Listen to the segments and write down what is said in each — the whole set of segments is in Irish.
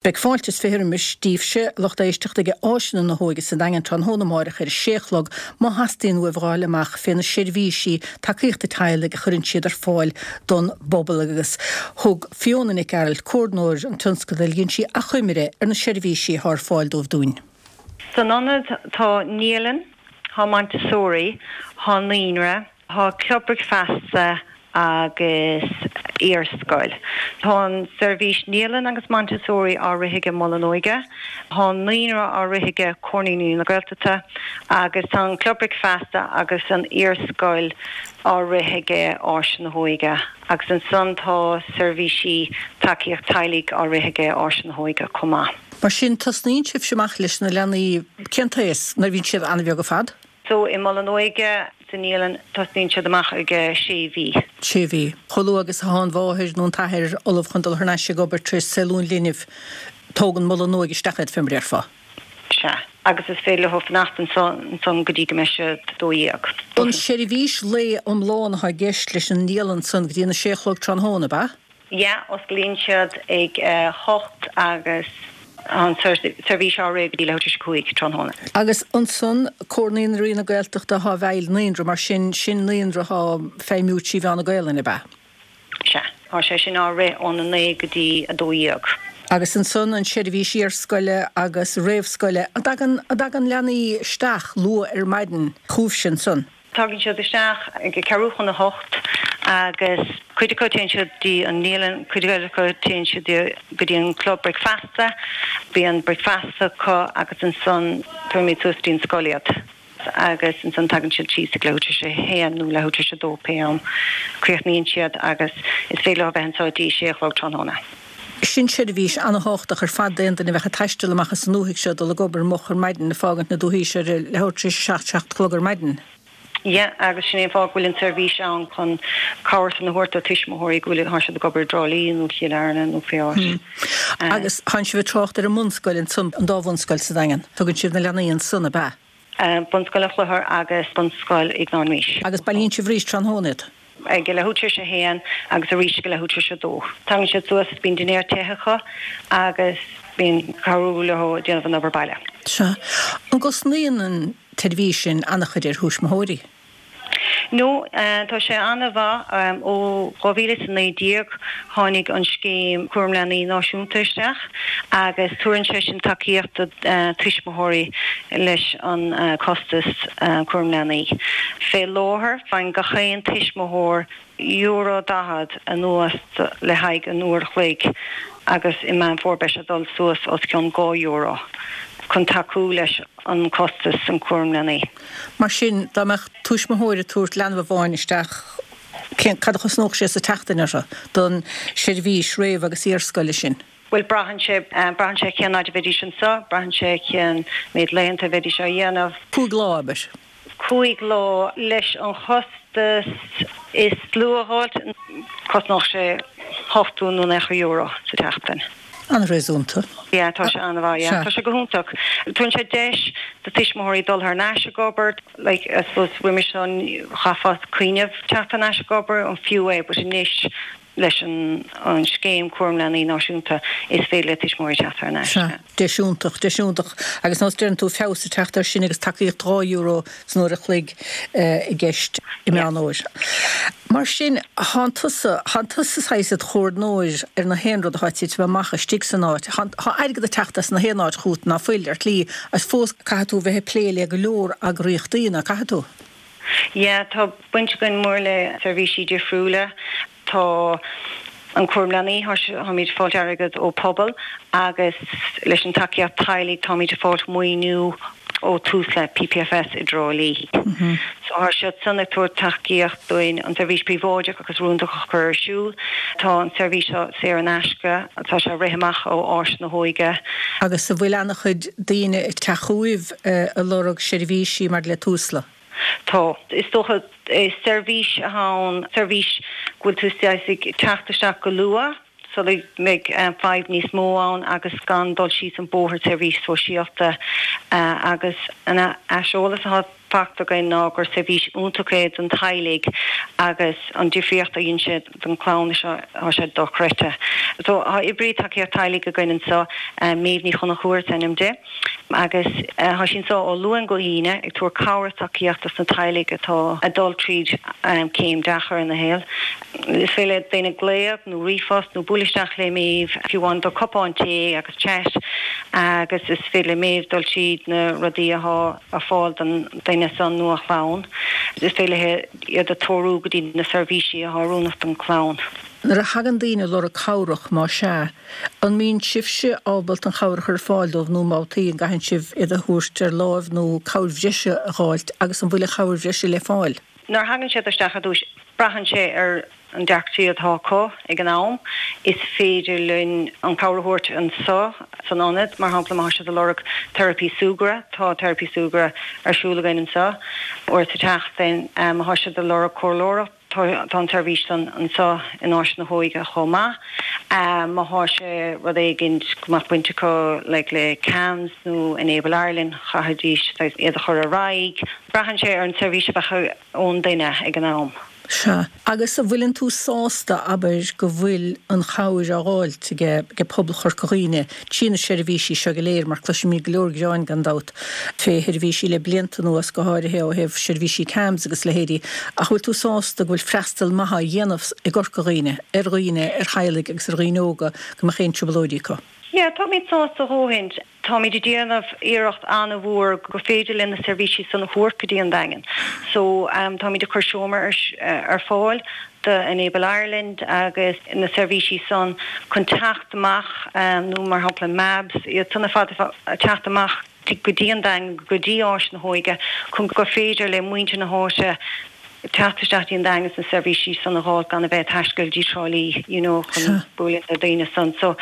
Beidh fáilte is 20 roimis daoibhse, a lucht éisteachta, ag Áiseanna na hÓige sa Daingean tráthnóna amáireach ar a sé a chlog má theastaíonn uaibh a fháil amach fé na seirbhísí tacaíochta teaghlaigh a chuireann siad ar fáil don bpobal agus thug Fiona Nic Gearailt, Comhordnóir an tionscadail, dhein sí achoimre ar na seirbhísí atá ar fáil dóibh dúinn. San ionad tá naíolann, tá Montessori, tá naíonra, Tá club bricfeasta agus iarscoil. Tá an seirbhís naíolann agus Montessori á rith aige Mol an Óige. Tá an naíonra á rith aige Comhar Naíonraí na Gaeltachta agus tá an club bricfeasta agus an iarscoil á rith aige Áis na hÓige agus ansan tá seirbhísí tacaíocht teaghlaigh á rith aige Áis na hÓige chomh maith. Mar sin, tosnaíonn sibhse amach leis na leanaí cén t-aos? Nuair a bhíonn siad an-bheag ar fad? So i Mol an Óige, sa naíolann, tosnaíonn siad amach ag sé mhí. Sé mhí. Chomh luath agus atá an mháthair nó an t-athair ullamh chun dul thar n-ais ag obair tar éis saolú an linbh, tógann Mol an Óige isteach iad, fé mar a déarfá. Sea. Agus is féidir leo fanacht anso ansan go dtí go mbeidh siad 12. An seirbhís lae iomlán atá i gceist leis an naíolann san go dtí an 6 a chlog tráthnóna, ab ea? Yeah, osclaíonn siad ag a hocht agus tá an seirbhís á rith go dtí leathuair tar éis a cúig tráthnóna. Agus ansan, Comhar Naíonraí na Gaeltachta atá i bhfeighil naíonra, mar sin, sin naíonra atá ag feidhmiú trí mheán na Gaelainne, ab ea? Sea. Tá sé sin á rith óna naoi go dtí a 12. Agus ansan an seirbhís iarscoile agus réamhscoile, an dtagann, an dtagann leanaí isteach luath ar maidin chugaibhse ansan? Tagann siad isteach ag ceathrú chun a hocht agus cuid acu téann siad dtí an naíolann, cuid eile acu téann siad go dtí an club bricfeasta. Bíonn bricfeasta acu agus ansan tabhairimid suas dtí an scoil iad agus ansan tagann siad síos ag leathuair tar éis a haon nó leathuair tar éis a dó pé am a críochnaíonn siad agus is féidir leo a bheith anseo dtí sé a chlog tráthnóna. Sin seirbhís ana-thábhachtach ar fad d'aon duine a bheadh ag taisteal amach as an ndúthaigh seo, dul ag obair moch ar maidin, ag fágaint na dúthaí seo ar a leathuair tar éis a seacht, seacht a chlog ar maidin. Yeah, agus sin é an fáth go bhfuil an tseirbhís ann chun cabhair san a thabhairt do tuismitheoirí go bhfuil, tá siad ag obair i dTrá Lí nó Chill Airne nó pé áit. Agus tánn sibh ag trácht ar an mbunscoil ansan, an dá bhunscoil sa Daingean. Tugann sibh na leanaí ansan, ab ea? Bunscoil an Chlochair agus Bunscoil Iognáin Rís. Agus bailíonn sibh arís tráthnóna iad? Ag a leathuair tar éis a haon agus arís ag a leathuair tar éis a dó. Tagann siad suas, bíonn dinnéar te acu agus bíonn cabhrú leo ag déanamh an obair baile. Sea. An gcosnaíonn an tseirbhís sin an-chuid ar thuismitheoirí? No, tá sé an-mhaith. Ó 2019 tháinig an scéim Cúram Leanaí Náisiúnta isteach agus tabharann sé sin tacaíocht do tuismitheoirí leis an costas cúram leanaí. Fé láthair faigheann gach aon tuismitheoir euro 40 anuas le haghaidh an uair a chloig agus i Meán Fómhair beidh sé ag dul suas os cionn €2 chun tacú leis an costas an cúram leanaí. Mar sin, dá mbeadh tuismitheoir ag tabhairt leanbh amháin isteach, cén, cad a chosnódh sé sa tseachtain orthu don seirbhís réamh agus iarscoile sin? Bhuel, braitheann sé, braitheann sé cén fhaid a bheidís anseo, braitheann sé cén méid laethanta a bheidís á dhéanamh. 5 lá, abair. 5 lá, leis an chostas is lú a dh'fháilt, cosnódh sé ochtó nó naocha euro sa tseachtain. An-réasúnta. Yeah, tá sé an-mhaith, yeah. Tá sé go hiontach. Tugann sé deis do tuismitheoirí dul thar n-ais ag obair, like, I suppose roimis seo chaithfeá cuimhneamh teacht thar n-ais ag obair, an fiú é, but anois leis an an scéim cúram leanaí náisiúnta is féidir le tuismitheoirí teacht thar n-ais. Sea, deis iontach, deis iontach. Agus nós deireann tú feabhas ag teacht air sin agus tacaíocht €2 san uair a chloig i gceist i Meán Fhómhair. Mar sin, thánn tusa, thánn tusa saghas id chomhordnóir ar na haon rud atá ag titim amach istigh san áit. Tá airgead ag teacht as na haon áit chugat ná fuil, ar shlí, agus fós caithfidh tú bheith ag plé le go leor eagraíochtaí, ná caithfidh tú? Yeah, tá baint againn mór le seirbhísí difriúla. Tá an cúram leanaí, táimid ag fáilt airgead ó Pobal agus leis an tacaíocht teaghlaigh táimid ag fáilt maoiniú ó Tusla, PPFS i dTrá Lí. So tá siad san ag tabhairt tacaíocht dúinn an seirbhís príobháideach agus rúndach a chur ar siúl. Tá an seirbhís seo saor in aisce, tá sé ag rith amach ó Áis na hÓige. Agus an bhfuil ana-chuid daoine ag teacht chugaibh ag lorg seirbhísí maidir le Tusla? Tá. Is dócha, is seirbhís atá ann, seirbhís go bhfuil tú saghas ag teacht isteach go luath sula mbeidh fadhb níos mó ann agus gan dul síos an bóthar seirbhís sóisialta agus an aiseolas atá. fachta againn ná gur seirbhís iontach é don teaghlaigh agus an difríocht a dhein sé don chlann seo, tá sé dochreidte. So tá oibrí tacaíocht teaghlaigh againn anseo, Méabh Ní Chonchúir is ainm di, agus tá sí anseo ó Luan go hAoine ag tabhairt cabhair is tacaíocht dos na teaghlaigh atá ag dul tríd céim deacair ina shaol. Is féidir le daoine glaoch nó ríomhphost nó bualadh isteach le Méabh fiú amháin do cupán tae agus chat agus is féidir le Méabh dul tríd na rudaí atá ar fáil don duine san nó a chlann. Is féidir léi iad a treorú go dtí na seirbhísí atá oiriúnach don chlann. Nuair a thagann daoine ag lorg cabhrach, má sea, an mbíonn sibhse ábalta an chabhair a chur ar fáil dóibh nó babhtaí an gcaitheann sibh iad a thabhairt ar láimh nó cabhair bhreise a dh'fháilt agus an bhfuil an chabhair bhreise le fáil? Nuair a thagann siad isteach ar dtús, braitheann sé ar an deacrachtaí atá acu ag an am. Is féidir linn an cabhair a thabhairt anseo san ionad, mar shampla má tá siad ag lorg teiripí súgartha, tá teiripí súgartha ar siúl againn anseo uair sa tseachtain. Má tá siad ag lorg comhairleoireacht, tá an tseirbhís san anseo in Áis na hÓige chomh maith. Má tá sé rud éigin go mbeadh baint acu like le CAMHS nó Enable Ireland, chaithfidís iad a chur ar aghaidh. Braitheann sé ar an tseirbhís a bheadh ón duine ag an am. Sea. Agus an bhfuileann tú sásta, abair, go bhfuil an chabhair á dh'fháilt ag pobal Chorca Dhuibhne trí na seirbhísí seo go léir, mar cloisimid go leor gearáin, gan dabht, fé sheirbhísí le blianta anuas, go háirithe ó thaobh seirbhísí CAMHS agus leithéidí, ach bhfuil tú sásta go bhfuil freastal maith á dhéanamh i gCorca Dhuibhne ar dhaoine, ar theaghlaigh agus ar dhaoine óga go mbeadh aon trioblóidí acu? Yeah, táimid sásta a dhóthain. Táimid ag déanamh iarracht an-mhór gur féidir linn na seirbhísí san a thabhairt go dtí an Daingean. So, táimid ag cur seomra ar fáil do Enable Ireland agus na seirbhísí san chun teacht amach nó mar shampla MABS, iad san ar fad ag teacht amach go dtí an Daingean, go dtí Áis na hÓige chun gur féidir le muintir na háite teacht isteach dtí an Daingean is na seirbhísí san a dh'fháil gan a bheith ag taisteal dtí Trá Lí you know chun bualadh le daoine san. So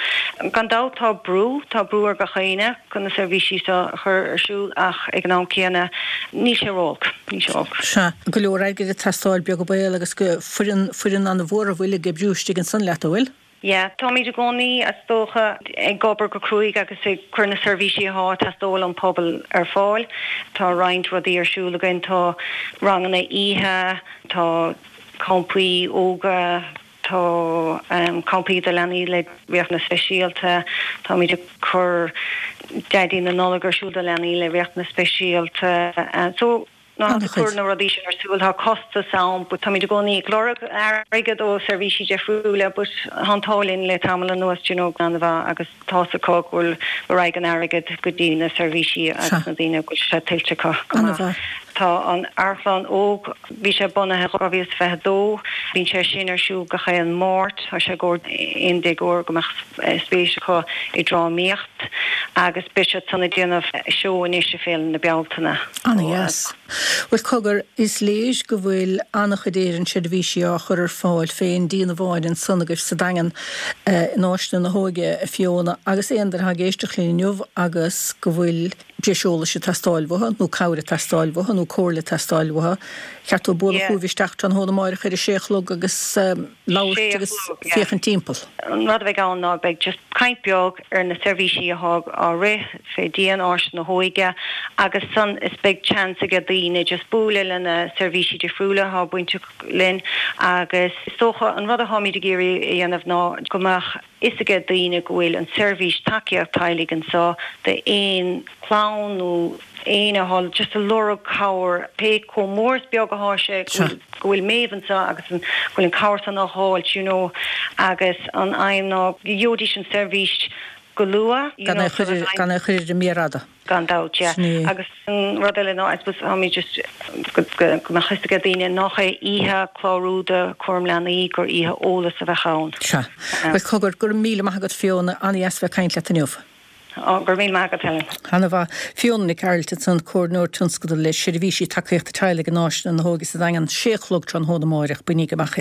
gan dabht tá brú, tá brú ar gach éinne chun na seirbhísí seo a chur ar siúl ach ag an am céanna níl sé ró-olc, níl sé olc. Sea, go leor airgid ag teastáil beag an baol agus go foireann, foireann an-mhór a bhfuil ag oibriú istigh ansan leat, an bhfuil? Yeah, táimid i gcónaí, is dócha, ag obair go cruaidh agus ag cur na seirbhísí atá ag teastáil ón pobal ar fáil. Tá roinnt rudaí ar siúl againn, tá ranganna oíche, tá campaí ióga, tá campaí do leanaí le riachtanais speisialta, táimid ag cur Daidí na Nollag ar siúl do leanaí le riachtanais speisialta. So. Nuair atá tú ag cur na rudaí sin ar siúl, tá costas ann but táimid i gcónaí ag lorg airgead ó seirbhísí difriúla but tá an t-ádh linn le tamall anuas you know an-mhaith agus tá's acu go bhfuil go raghaidh an airgead go dtí na seirbhísí agus na daoine go bhfuil sé tuillte acu go maith. Tá an Amharclann Óg, bhí sé bunaithe 2022, bíonn sé sin ar siúl gach aon Máirt, tá sé i gcomhair aon déagóir go mbeadh spéis acu i drámaíocht agus beidh siad san ag déanamh seó anois i Féile na Bealtaine. Ana-dheas. Bhuel, cogar, is léir go bhfuil an-chuid Éireann seirbhísí á chur ar fáil fén díon amháin ansan agaibh sa Daingean in Áiseanna na hÓige, a Fiona, agus aon duine atá ag éisteacht linn inniu agus go bhfuil breis eolais ag teastáil uathu, nó cabhair ag teastáil uathu, nó comhairle ag teastáil uathu, cheart dóibh bualadh chugaibh isteach tráthnóna amáireach ar a sé a chlog agus labhairt agus féachaint timpeall. An rud a bheidh ann ná beidh just caint beag ar na seirbhísí atá á rith fé dhíon Áis na hÓige agus san is beidh chance aige daoine just bualadh le na seirbhísí difriúla atá bainteach linn agus is dócha an rud atáimid ag iarraidh a dhéanamh ná go mbeadh fhios aige daoine go bhfuil an seirbhís tacaíocht teaghlaigh anseo d'aon chlann nó éinne atá just ag lorg cabhair pé chomh mór is beag atá sé go bhfuil go bhfuil Méabh anseo agus an go bhfuil an cabhair san á dh'fháilt you know agus an aidhm ná go gheobhaidís an seirbhís go luath you know so that Gan é a chur ar an mhéar fhada. Gan dabht, yeah. Sin é. Agus an rud eile ná, I suppose, táimid just, go mbeadh fhios aige daoine nach é oíche clárú do chúram leanaí, gur oíche eolas a bheadh ann. Sea. Bhuel, cogar, go raibh míle maith agat Fiona, an-dheas bheith ag caint leat inniu. Ó, go raibh míle maith agat Helen. Ana-mhaith. Fiona Nic Gearailt ansan, Comhairleoir Tionscadal le Seirbhísí Tacaíochta Teaghlaigh in Áiseanna na hÓige sa Daingean, sé a chlog tráthnóna amáireach, bainigí amach iad.